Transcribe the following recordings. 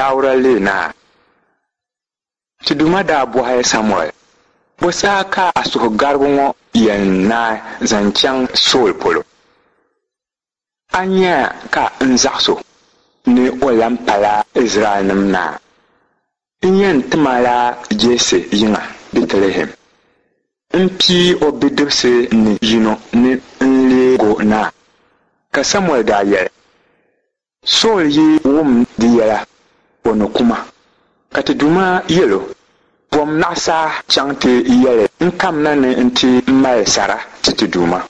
Dauda leei naa. Ti Duuma daa bɔhi Samuɛl, Bɔ saha ka a suhugarigu ŋɔ yɛn naai zaŋ chaŋ Sool polo? A nya ka n zaɣis o ni o lan pala Izraɛlnim naa. N yɛn tim a la Jɛsi yiŋa Bɛtilihɛm. M pii o bidibisi ni yino ni n-leeg o naa. Ka Samuɛl daa yɛli, Sool yi wum di yɛla, o ni ku ma. Ka ti Duuma yɛl o, Bom naɣisaa chaŋ ti yɛli n kamina ni nti mali sara ti ti Duuma.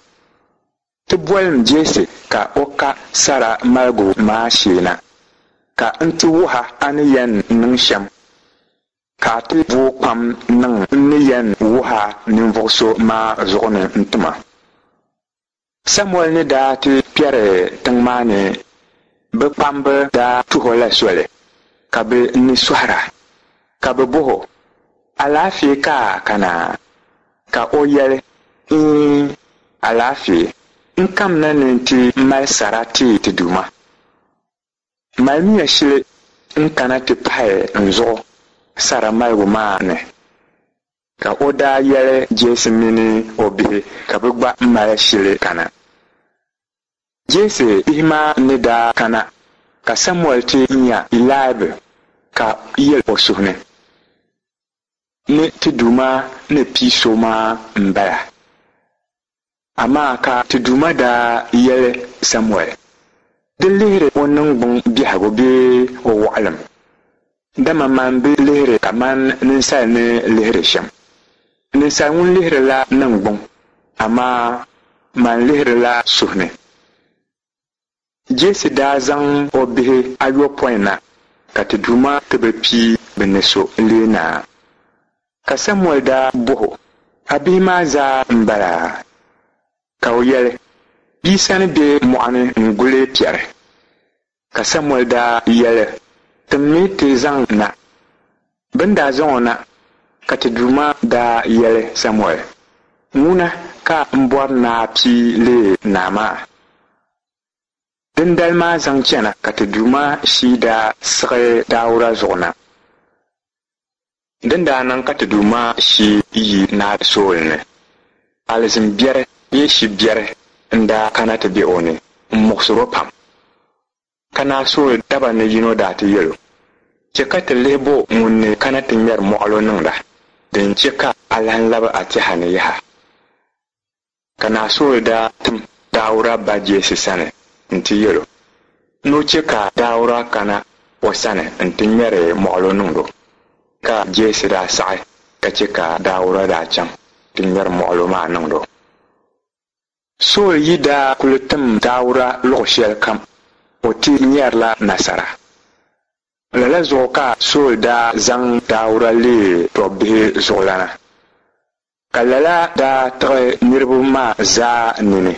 Ti bolim Jɛsi ka o ka sara maligu maa shee na, ka n ti wuh a a ni yɛn niŋ shɛm, ka a ti booi kpam niŋ n ni yɛn wuh a ninvuɣ so maa zuɣu ni n-ti ma. Samuɛl ni daa ti kpɛri tiŋ maa ni, bɛ kpamba daa tuh o la soli, ka bɛ ni sɔhira, ka bɛ bɔh o, Alaafee ka a kana? Ka o yɛli, Iin, alaafee. N kamina ni n ti mali sara ti ti Duuma. Malimiya shili n-kana ti pahi n zuɣu sara maligu maa ni. Ka o daa yɛli Jɛsi mini o bihi ka bɛ gba mali shili kana. Jɛsi bihi maa ni daa kana, ka Samuɛl ti nya Ilaib ka yɛl o suhu ni, Ni ti Duuma ni pii so maa m-bala. Amaa ka ti Duuma daa yɛli Samuɛl, Di lihiri o niŋgbuŋ biɛhigu bee o wɔɣilim, dama man bi lihiri kaman ninsal ni lihiri shɛm. Ninsal ŋun lihirila niŋgbuŋ, amaa man lihirila suhu ni. Jɛsi daa zaŋ o bihi ayopɔin na ka ti Duuma ti bi pii bɛ ni so n-leei naa. Ka Samuɛl daa bɔh o, A bihi maa zaa m-bala? Ka o yɛli, Bia sani be mɔɣu ni n-guli piɛri. Ka Samuɛl daa yɛli, Timmi ti zaŋ na. Bɛ ni daa zaŋ o na, ka ti Duuma daa yɛli Samuɛl, Ŋuna ka m bɔri ni a pii leei naa maa. Dindali maa zaŋ chana ka ti Duuma shii daa siɣi Dauda zuɣu na. Din daa niŋ ka ti Duuma shii yi Naa Sool ni, alizin biɛri bee shi biɛri n-daa kana ti be o ni m-muɣisir o pam. Ka Naa Sool daba ni yino daa ti yɛl o, Chɛ ka ti lihi bo ŋun ni kana ti ŋmɛri mɔɣilo niŋda, din chɛ ka a lan lab a tɛha ni yaha. Ka Naa Sool daa tim Dauda ba Jɛsi sani nti yɛl o ni o chɛ ka Dauda kana o sani nti ŋmɛri mɔɣilo niŋd o. Ka Jɛsi daa saɣi ka chɛ ka Dauda daa chaŋ ti ŋmɛri mɔɣilo maa niŋd o. Sool yi daa kul tim Dauda luɣ shɛlikam, o ti nyarila nasara. Lala zuɣu ka Sool daa zaŋ Dauda leei tɔbbihi zuɣulana. Ka lala daa tiɣi niriba maa zaa nini.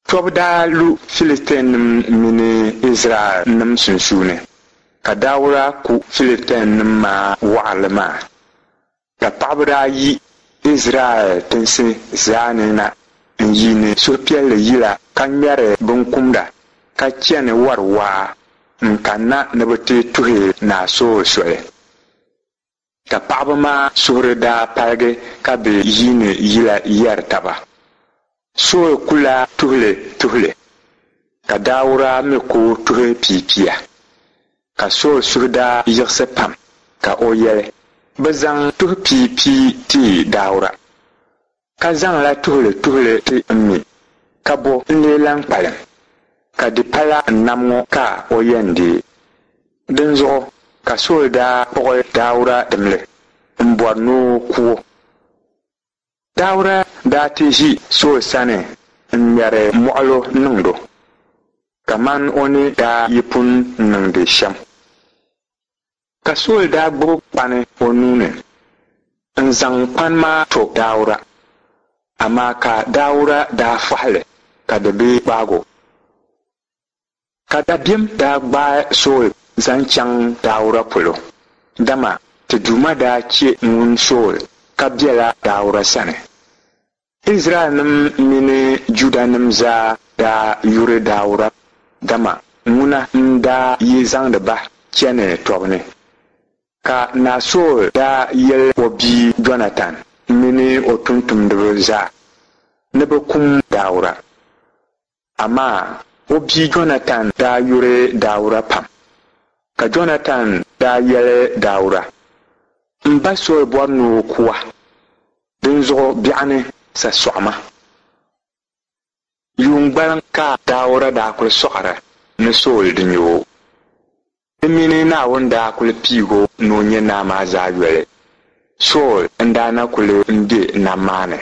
Tɔbu daa lu Filistianim mini Izraɛlnim sunsuuni, ka Dauda ku Filistianim maa wɔɣirili maa. Ka paɣiba daa yi Izraɛl tinsi zaa ni na n-yiini suhupiɛlli yila ka ŋmɛri binkumda, ka chani wari waa n-kanna ni bɛ ti tuhi Naa Sool soli. Ka paɣiba maa suhuri daa paligi ka bɛ yiini yila yɛri taba, Sool kula tuhili tuhili, ka Dauda mi ku tuhi piapia. Ka Sool suhu daa yiɣisi pam, ka o yɛli, Bɛ zaŋ tuhi piapia ti Dauda, ka zaŋla tuhili tuhili ti m mi, ka bɔ n-lee lan kpalim? Ka di pala n nam ŋɔ ka o yɛn deei. Dinzuɣu ka Sool daa kpuɣi Dauda dimli m-bɔri ni o ku o. Dauda daa ti ʒi Sool sani n-ŋmɛri mɔɣilo niŋd o, kaman o ni daa yi pun niŋdi shɛm. Ka Sool daa gbibi kpani o nuu ni n-zaŋ kpani maa to Dauda, amaa ka Dauda daa fɔhi li ka di bi gbaag o. Ka dabiɛm daa gbaai Sool zaŋ chaŋ Dauda polo, dama ti Duuma daa chɛ ŋun Sool ka bela Dauda sani. Izraɛlnim mini Judanim zaa daa yuri Dauda, dama ŋuna n-daa yi zaŋdi ba chani tɔbu ni. Ka Naa Sool daa yɛl o bia Jɔnatan mini o tumtumdiba zaa ni bɛ kum Dauda. Amaa o bia Jɔnatan daa yuri Dauda pam. Ka Jɔnatan daa yɛli Dauda, M ba Sool bɔri ni o ku a, dinzuɣu biɛɣuni sa sɔɣima. Yuun gbaliŋ ka Dauda daa kul sɔɣira ni Sool di nya o. Di mini Naawuni daa kul piig o ni o nyɛ naa maa zaa yoli, Sool n-daa na kul be nam maa ni.